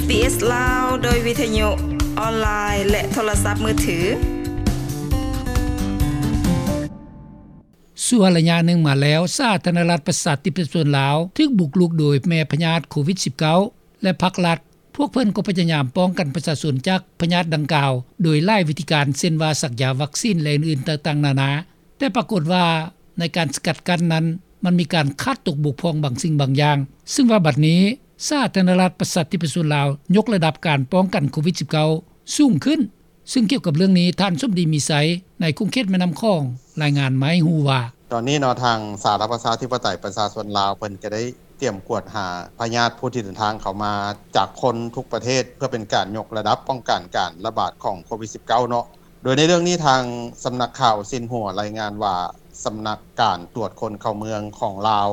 ເອສ ລາວ ໂດຍວິທະຍຸອອນລາຍ ແລະ ໂທລະສັບມືຖື. ຊົ່ວໄລຍະໜຶ່ງມາແລ້ວ, ສາທາລະນະລັດປະຊາທິປະໄຕປະຊາຊົນລາວ ຖືກບຸກລຸກໂດຍແມ່ພະຍາດໂຄວິດສິບເກົ້າ ແລະ ພັກລັດ ພວກເພິ່ນກໍພະຍາຍາມປ້ອງກັນປະຊາຊົນຈາກພະຍາດດັ່ງກ່າວ ໂດຍຫຼາຍວິທີການ ເຊັ່ນວ່າ ສັກຢາວັກຊີນ ແລະ ອື່ນໆຕ່າງໆນານາ. ແຕ່ປາກົດວ່າໃນການສະກັດກັ້ນນັ້ນ ມັນມີການຂາດຕົກບົກຜ່ອງບາງສິ່ງບາງຢ່າງ, ຊຶ່ງວ່າບັດນີ້ ສາທາລະນະລັດປະຊາທິປະຊາຊົນລາວ ຍົກລະດັບການປ້ອງກັນໂຄວິດສິບເກົ້າສູງຂຶ້ນ. ຊຶ່ງກ່ຽວກັບເລື່ອງນີ້, ທ່ານ ສົມດີ ມີໄຊ ໃນຂົງເຂດແມ່ນ້ຳຂອງ ລາຍງານມາໃຫ້ຮູ້ວ່າ, ຕອນນີ້ເນາະ ທາງສາທາລະນະລັດປະຊາທິປະໄຕປະຊາຊົນລາວ ເພິ່ນກໍໄດ້ຕຽມກວດຫາພະຍາດຜູ້ທີ່ເດີນທາງເຂົ້າມາຈາກຄົນທຸກປະເທດ ເພື່ອເປັນການຍົກລະດັບປ້ອງກັນການລະບາດຂອງໂຄວິດສິບເກົ້າເນາະ. ໂດຍໃນເລື່ອງນີ້ ທາງສຳນັກຂ່າວຊິນຫົວລາຍງານວ່າ ສຳນັກການກວດຄົນເຂົ້າເມືອງຂອງລາວ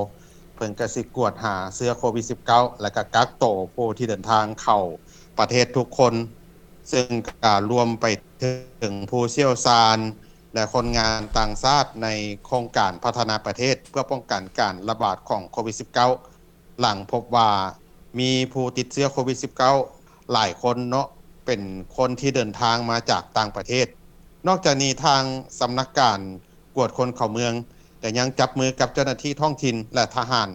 ເພິ່ນກໍຊິກວດຫາເຊື້ອໂຄວິດສິບເກົ້າ ແລະ ກໍກັກໂຕຜູ້ທີ່ເດີນທາງເຂົ້າປະເທດທຸກຄົນ, ຊຶ່ງກໍລວມໄປເຖິງຜູ້ຊ່ຽວຊານ ແລະ ຄົນງານຕ່າງຊາດໃນໂຄງການພັດທະນາປະເທດ ເພື່ອປ້ອງກັນການລະບາດຂອງໂຄວິດສິບເກົ້າ ຫຼັງພົບວ່າມີຜູ້ຕິດເຊື້ອໂຄວິດສິບເກົ້າຫຼາຍຄົນເນາະ ເປັນຄົນທີ່ເດີນທາງມາຈາກຕ່າງປະເທດ. ນອກຈາກນີ້ ທາງສຳນັກການກວດຄົນເຂົ້າເມືອງ ກໍຍັງຈັບມືກັບເຈົ້າໜ້າທີ່ທ້ອງຖິ່ນ ແລະ ທະຫານ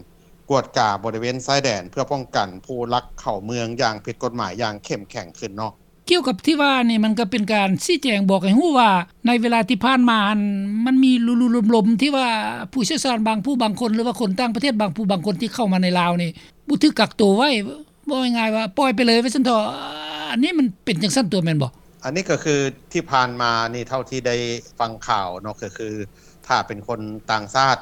ກວດກາບໍລິເວນຊາຍແດນ ເພື່ອປ້ອງກັນຜູ້ລັກເຂົ້າເມືອງຢ່າງຜິດກົດໝາຍຢ່າງເຂັ້ມແຂງຂຶ້ນເນາະ. ກ່ຽວກັບທີ່ວ່ານີ້ ມັນກໍເປັນການຊີ້ແຈງບອກໃຫ້ຮູ້ວ່າ ໃນເວລາທີ່ຜ່ານມາຫັ້ນ ມັນມີລຸໆລົມໆ ທີ່ວ່າຜູ້ຊ່ຽວຊານບາງຜູ້ບາງຄົນ ຫຼືວ່າຄົນຕ່າງປະເທດບາງຜູ້ບາງຄົນທີ່ເຂົ້າມາໃນລາວນີ້ ບໍ່ຖືກກັກໂຕໄວ້, ເວົ້າງ່າຍໆວ່າປ່ອຍໄປເລີຍວ່າຊັ້ນເຖາະ. ອັນນີ້ມັນເປັນຈັ່ງຊັ້ນຕົວະແມ່ນບໍ່? ອັນນີ້ກໍຄືທີ່ຜ່ານມານີ້ ເທົ່າທີ່ໄດ້ຟັງຂ່າວເນາະ ກໍຄືຖ້າເປັນຄົນຕ່າງຊາດ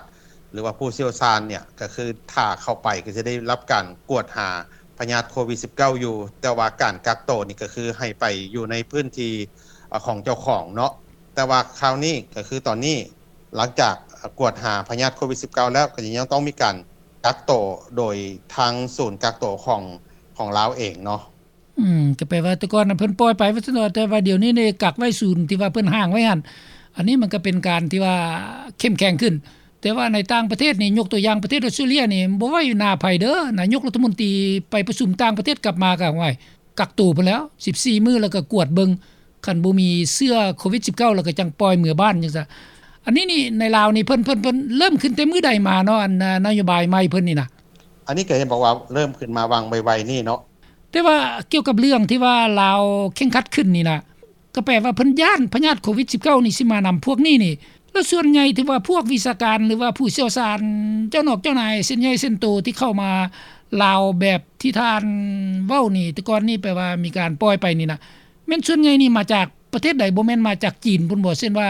ຫຼືວ່າຜູ້ຊ່ຽວຊານເນຍ ກໍຄືຖ້າເຂົ້າໄປກໍຈະໄດ້ຮັບການກວດຫາພະຍາດໂຄວິດສິບເກົ້າຢູ່, ແຕ່ວ່າການກັກໂຕນີ້ກໍຄືໃຫ້ໄປຢູ່ໃນພື້ນທີ່ ອາ ຂອງເຈົ້າຂອງເນາະ. ແຕ່ວ່າຄາວນີ້ກໍຄືຕອນນີ້ ຫຼັງຈາກ ອາ ກວດຫາພະຍາດໂຄວິດສິບເກົ້າແລ້ວ ກໍຍັງຕ້ອງມີການກັກໂຕໂດຍທາງສູນກັກໂຕຂອງ ຂອງລາວເອງເນາະ. ອືມ ກໍແປວ່າແຕ່ກ່ອນນະເພິ່ນປ່ອຍໄປວ່າຊັ້ນເຖາະ, ແຕ່ວ່າດຽວນີ້ນີ້ກັກໄວ້ສູນທີ່ວ່າເພິ່ນຫ້າງໄວ້ຫັ້ນ. ອັນນີ້ມັນກໍເປັນການທີ່ວ່າເຂັ້ມແຂງຂຶ້ນ. ແຕ່ວ່າໃນຕ່າງປະເທດນີ້ ຍົກຕົວຢ່າງປະເທດອອສເຕຣເລຍນີ້ ບໍ່ໄວ້ໜ້າໃຜເດີ, ນາຍົກລັດຖະມົນຕີໄປປະຊຸມຕ່າງປະເທດກັບມາກໍ ໂອ້ຍ ກັກໂຕພຸ້ນແລ້ວ ສິບສີ່ມື້ ແລ້ວກໍກວດເບິ່ງ, ຄັນບໍ່ມີເຊື້ອໂຄວິດສິບເກົ້າ ແລ້ວກໍຈັ່ງປ່ອຍເມືອບ້ານຈັ່ງຊັ້ນ. ອັນນີ້ນີ້ໃນລາວນີ້ເພິ່ນ ເພິ່ນ ເພິ່ນເລີ່ມຂຶ້ນແຕ່ມື້ໃດມາເນາະ ອັນນະໂຍບາຍໃໝ່ເພິ່ນນີ້ນະ? ອັນນີ້ກໍເຫັນບອກວ່າເລີ່ມຂຶ້ນມາຫວ່າງໄວໆນີ້ເນາະ. ແຕ່ວ່າກ່ຽວກັບເລື່ອງທີ່ວ່າລາວເຄັ່ງຄັດຂຶ້ນນີ້ນະ ກໍແປວ່າເພິ່ນຢ້ານພະຍາດໂຄວິດສິບເກົ້ານີ້ຊິມານຳພວກນີ້ນີ້. ແລ້ວສ່ວນໃຫຍ່ທີ່ວ່າພວກວິຊາການ ຫຼືວ່າຜູ້ຊ່ຽວຊານ ເຈົ້ານອກເຈົ້ານາຍເຊັ່ນໃຫຍ່ເຊັ່ນໂຕທີ່ເຂົ້າມາລາວແບບທີ່ທ່ານເວົ້ານີ້ ແຕ່ກ່ອນນີ້ແປວ່າມີການປ່ອຍໄປນີ້ນະ ແມ່ນສ່ວນໃຫຍ່ນີ້ມາຈາກປະເທດໃດ? ບໍ່ແມ່ນມາຈາກຈີນພຸ້ນບໍ່? ເຊັ່ນວ່າ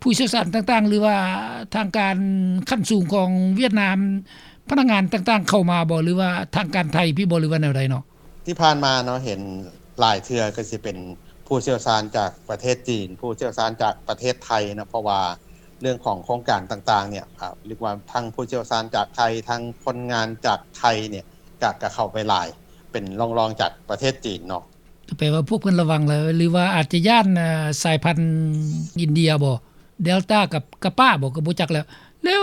ຜູ້ຊ່ຽວຊານຕ່າງໆ ຫຼືວ່າທາງການຂັ້ນສູງຂອງຫວຽດນາມ ພະນັກງານຕ່າງໆເຂົ້າມາບໍ່ ຫຼືວ່າທາງການໄທພີ້ບໍ່ ຫຼືວ່າແນວໃດເນາະ? ທີ່ຜ່ານມາເນາະ ເຫັນຫຼາຍເທື່ອກໍຊິເປັນຜູ້ຊ່ຽວຊານຈາກປະເທດຈີນ, ຜູ້ຊ່ຽວຊານຈາກປະເທດໄທເນາະ ເພາະວ່າເລື່ອງຂອງໂຄງການຕ່າງໆເນຍ ອາ ເອີ້ນວ່າທັງຜູ້ຊ່ຽວຊານຈາກໄທ ທັງຄົນງານຈາກໄທເນຍ ກະ ກະເຂົ້າໄປຫຼາຍ ເປັນລອງໆຈາກປະເທດຈີນເນາະ. ກໍແປວ່າພວກເພິ່ນລະວັງແລ້ວ ຫຼືວ່າອາດຈະຢ້ານ ເອີ ສາຍພັນອິນເດຍບໍ່ ເດລຕາກັບກາປາບໍ່ ກໍບໍ່ຈັກແລ້ວ. ແລ້ວ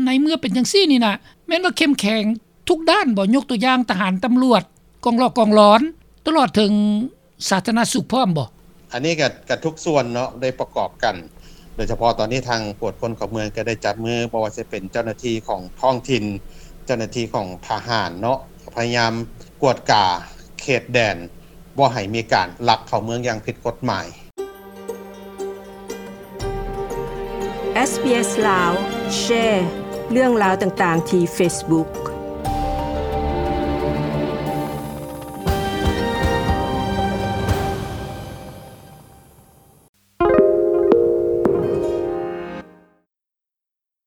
ໃນເມື່ອເປັນຈັ່ງຊີ້ນີ້ນະ ແມ່ນວ່າເຂັ້ມແຂງທຸກດ້ານບໍ່? ຍົກຕົວຢ່າງທະຫານ, ຕຳຫຼວດ, ກອງຫຼອກກອງຫຼອນ ຕະຫຼອດເຖິງສາທາລະນະສຸກພ້ອມບໍ່? ອັນນີ້ກໍ ກໍທຸກສ່ວນເນາະ ໄດ້ປະກອບກັນ. ໂດຍສະເພາະຕອນນີ້ທາງກວດຄົນເຂົ້າເມືອງກໍໄດ້ຈັບມື ບໍ່ວ່າຈະເປັນເຈົ້າໜ້າທີ່ຂອງທ້ອງຖິ່ນ, ເຈົ້າໜ້າທີ່ຂອງທະຫານເນາະ ພະຍາຍາມກວດກາເຂດແດນ ບໍ່ໃຫ້ມີການລັກເຂົ້າເມືອງຢ່າງຜິດກົດໝາຍ. ເອສ ບີ ເອສ ລາວ ແຊເລື່ອງລາວຕ່າງໆທີ່ເຟສບຸກ.